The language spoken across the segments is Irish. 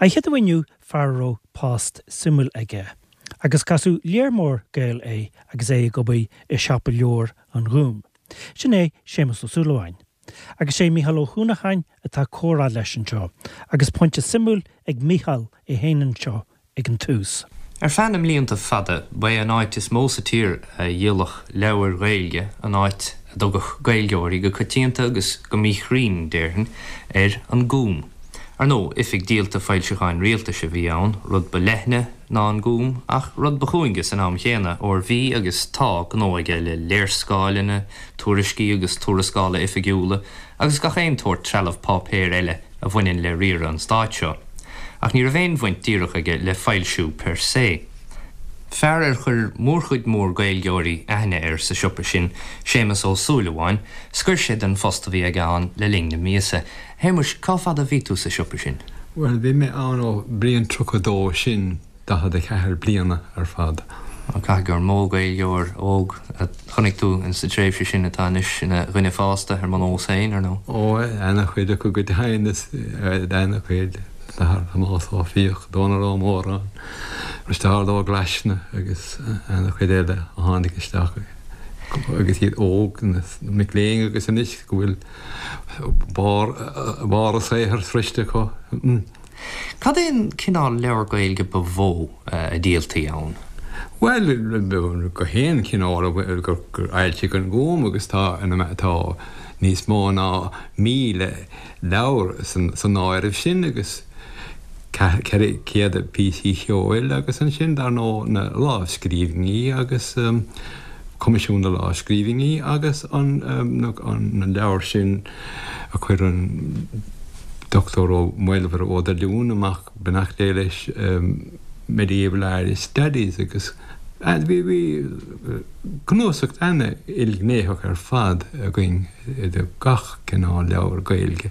An chéad uair inniu fear a raibh post suimiúil aige, agus casadh léar mór Gael é agus é ag obair i Siopa Leabhar an Ghúim. Sin é Séamus Ó Súilleabháin. Agus sé Mícheál Ó hUanacháin atá ag comhrá leis anseo, agus pointe suimiúil ag Mícheál é féin anseo ag an tús. Ar feadh na mblianta fada, ba é an áit is mó sa tír a dhíolfadh leabhair Ghaeilge an áit a dtugadh Gaeilgeoirí go coitianta agus go míchruinn, déarfainn, air, an Gúm. Ar ndóigh, oifig díolta foilseacháin rialtais a bhí ann, rud ba leithne ná an Gúm, ach rud ba chúinge san am chéanna, óir bhí agus tá gnó aige le léarscáileanna, tuairiscí agus tuarascála oifigiúla, agus gach aon tsórt trealamh páipéir eile a bhaineann le riaradh an stáit seo. Ach ní raibh aon bhaint díreach aige le foilsiú per se. Fear ar chuir mórchuid mór Gaeilgeoirí aithne air sa siopa sin, Séamus Ó Súilleabháin, scoir sé den phost a bhí aige ann le linn na míosa. Shéamuis, cá fad a bhí tú sa siopa sin? Bhuel, bhí mé ann ó bliain 32, sin 44 bliana ar fad. Caithfidh gur mó Gaeilgeoir óg a chonaic tú in sa tréimhse sin atá anois ina dhuine fásta, ar mo nós féin, ar ndóigh. Ó, ana-chuid acu go deimhin, is ana-chuid. Tomás Ó Fiaich, Dónal Ó Móráin, Risteárd Ó Glaisne agus ana-chuid eile a tháinig isteach agus iad óg, na mic léinn agus anois go bhfuil barr barr a saothair sroichte acu. Cad é an cineál leabhar Gaeilge ba mhó a dhíoltaí ann? Bhuel, gach aon chineál gur fhoilsigh an Gúm agus tá tá níos mó ná 1,000 leabhar san áireamh sin agus 400 píosaí ceoil agus ansin dar ndóigh na lámhscríbhinní agus Coimisiún na Lámhscríbhinní agus an leabhar sin a chuir an Dr. Ó Maolmhuire Ó Doilliúin amach, beannacht Dé leis, Medieval Irish Studies agus bhí bhí cnuasach ana-ilghnéitheach ar fad againn de gach cineál leabhar Gaeilge.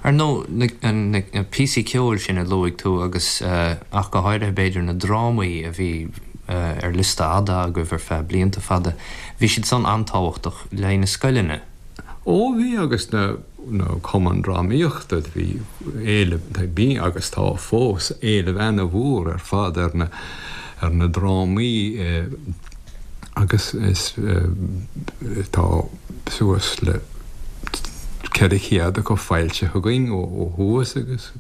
Ar ndóigh, na píosaí ceoil sin a luaigh tú agus ach go háirithe b'fhéidir na drámaí a bhí ar liosta fhada agaibh ar feadh blianta fada, bhí siad san an-tábhachtach le haghaidh na scoileanna. Ó bhí agus na cumainn drámaíochta, bhí éileamh, bhí agus tá fós, éileamh ana-mhór ar fad ar na ar na drámaí agus is tá suas le 400 acu foilsithe againn ó thuas agus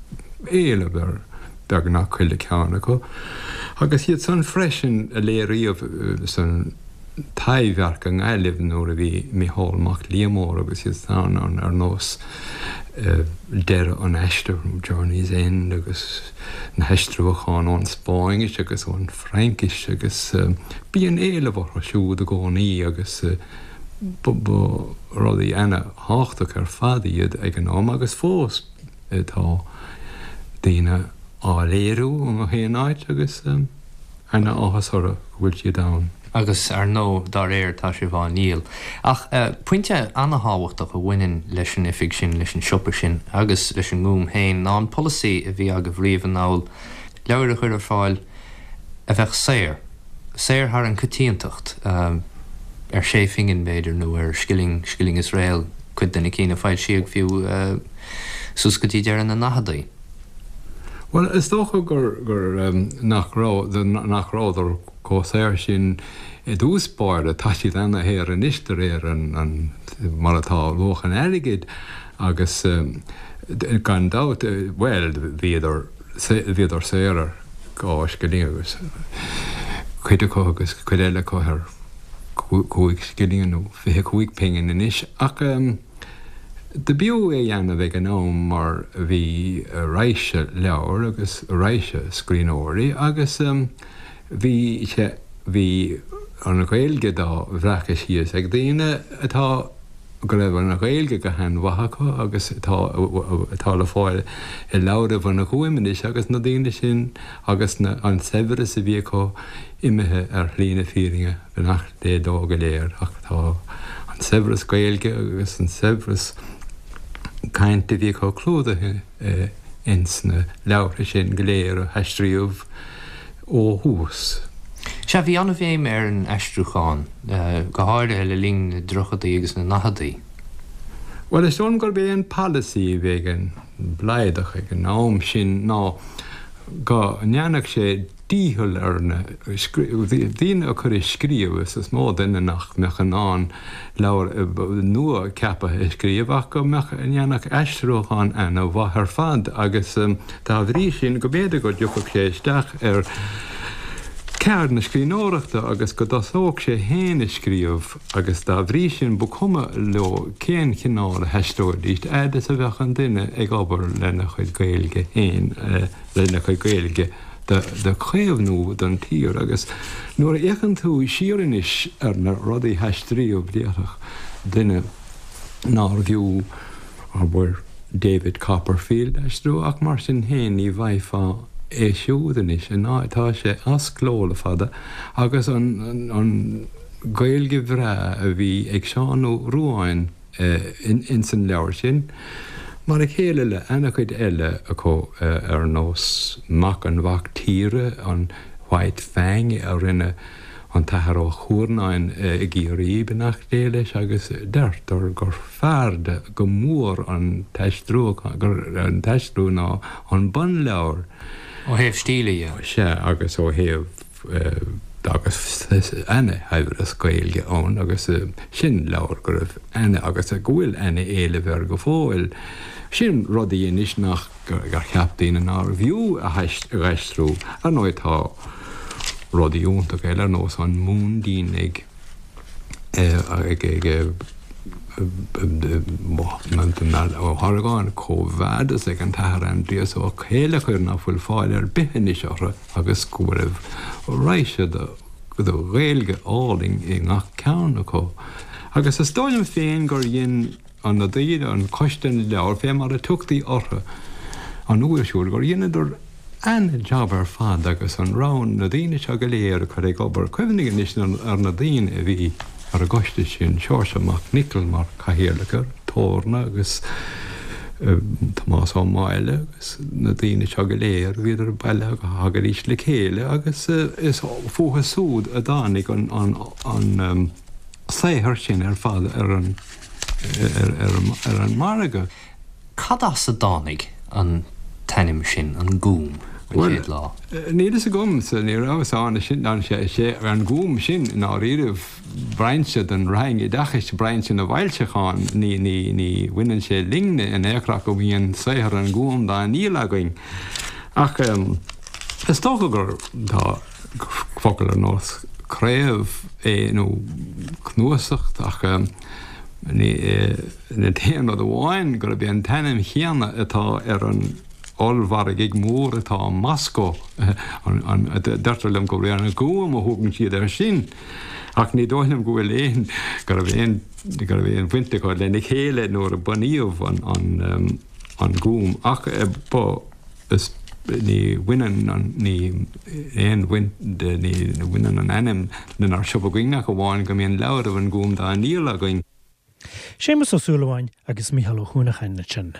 éileamh ar beagnach chuile ceann acu. Agus iad san freisin a léiríodh san Taibhdhearc i nGaillimh nuair a bhí Micheál Mac Liammóir agus iad san ann ar nós Deireadh an Aistir, Journey's End agus na haistriúcháin ón Spáinnis agus ón Fraincis agus bíonn éileamh orthu siúd i gcónaí agus ba rudaí ana-thábhachtach ar fad iad ag an am agus fós tá daoine á léiriú i ngach aon áit agus ana-áthas orthu go bhfuil siad ann. Agus ar ndóigh, dá réir, tá sibh á ndíol. Ach pointe ana-thábhachtach a bhaineann leis an oifig sin, leis an siopa sin agus leis an nGúm féin ná an polasaí a bhí agaibh riamh anall, leabhair a chur ar fáil a bheadh saor, saor thar an coitiantacht, ar sé phingin b'fhéidir nó ar scilling, scilling is réal, cuid de na cinn a foilsíodh fiú suas go dtí deireadh na ndaicheadaí. Bhuel, is dócha gur, gur, nach raibh, nach rabhadar chomh saor sin i dtús báire. Tá siad ana-shaor anois de réir an, an, mar atá luach an airgid agus gan dabht, bhuel, bhíodar, bhíodar saor ar dhá scilling agus cuid acu agus cuid eile acu ar chúig scilling nó 25 pingin anois ach, Do b'fhiú é dhéanamh ag an am mar bhí raidhse leabhar agus raidhse scríbhneoirí agus bhí sé, bhí an Ghaeilge dá bhreacadh síos ag daoine atá, go raibh an Ghaeilge go han-mhaith acu agus atá, atá le fáil i leabhraibh an Ghúim anois agus na daoine sin agus na, an saibhreas a bhí acu imithe ar shlí na fírinne. Beannacht Dé leo go léir ach tá an saibhreas Gaeilge agus an saibhreas cainte a bhí acu clúdaithe ins na leabhartha sin go léir a haistríodh ó thuas. Sea, bhí an-bhéim ar an aistriúchán, go háirithe le linn na dtríochadaí agus na ndaicheadaí. Bhuel, is dóigh liom gurb é an polasaí a bhí ag an mBlaghadach ag an am sin ná go ndéanfadh sé dícheall ar na daoine a chur ag scríobh, is is mó duine nach mbeadh in ann leabhar nua ceaptha a scríobh ach go mbeadh, ndéanfadh aistriúchán ana-mhaith ar fad agus dá bhrí sin go mb'fhéidir go dtiocfadh sé isteach ar cheard na scríbhneoireachta agus go dtosódh sé féin ag scríobh agus dá bhrí sin ba chuma leo cén chineál a haistreoidís fhad is a bheadh an duine ag obair lena chuid Gaeilge féin, lena chuid Gaeilge do chaomhnú don tír. Agus nuair a fhéachann tú siar anois ar na rudaí a haistríodh déarfadh duine nárbh fhiú, abair, David Copperfield a aistriú ach mar sin féin ní bhfaighfeá é siúd anois, tá sé as cló le fada agus an Ghaeilge bhreá a bhí ag Seán Ó Ruadháin ins an leabhar sin, mar a chéile le ana-chuid eile acu ar nós Mac an Mhac Tíre, an White Fang a rinne an tAthair Ó Cuarnáin i gCiarraí, beannacht Dé leis, agus deirtear gur fearrde go mór an t-aistriú ná an bunleabhar. Ó thaobh stíle dhe. Sea, agus ó thaobh. agus ana-shaibhreas Gaeilge ann agus sin leabhar go raibh ana agus go bhfuil ana-éileamh air go fóill. Sin rudaí anois nach gur cheap daoine nárbh fhiú a aistriú. Ar ndóigh tá rudaí iontacha eile ar nós An Mhúindín ag ag Ó hArgáin, Quo Vadis ag an tAthair Aindrias Ó Céileachair nach bhfuil fáil ar bith anois orthu. agus go raibh raidhse de Ghaeilge álainn i ngach ceann acu. Agus is dóigh liom féin gur dhein an na daoine, an Coiste na Leabhar, fé mar a tugtaí orthu an uair siúd, gur dheineadar ana-jab ar fad agus an rogha na daoine seo go léir a chur ag obair. Cuimhnigh anois ar na daoine a bhí ar an gcoiste sin, Seoirse Mac Niocaill mar chathaoirleach air, Torna agus Tomás Ó Máille agus na daoine seo go léir, bhíodar bailithe go thagaidís le chéile agus is fúthu súd a dtáinig an saothar sin ar fad ar an ar an margadh. Cad as a dtáinig an t-ainm sin, An Gúm, an chéad lá? Bhuel, níl fhios agamsa, ní rabhas ann, sin an Gúm sin i ndáiríribh. brainse den Roinn Oideachais, brainse na bhfoilseachán, ní, ní, ní bhaineann sé linne in aon chor ach go mbíonn saothar an Ghúim dá ndíol againn. Ach is dócha gur, tá focal ar nós craobh é nó cnuasacht ach ní, an t-aon rud amháin gurb é an t-ainm chéanna atá ar an ollmhargadh mór atá i Moscó, deirtear liom gurb é an Gúm a thugann siad air sin, ach ní dóigh liom go bhfuil aon, go raibh aon, go raibh aon bhaint acu lena chéile nuair a bunaíodh an, an Gúm. Ach ba, is, ní bhaineann an, ní aon bhaint, ní bhaineann an ainm lenár siopa againn ach amháin go mbíonn leabhraibh an Ghúim dá ndíol againn. Séamus Ó Súilleabháin agus Mícheál Ó hUanacháin ansin.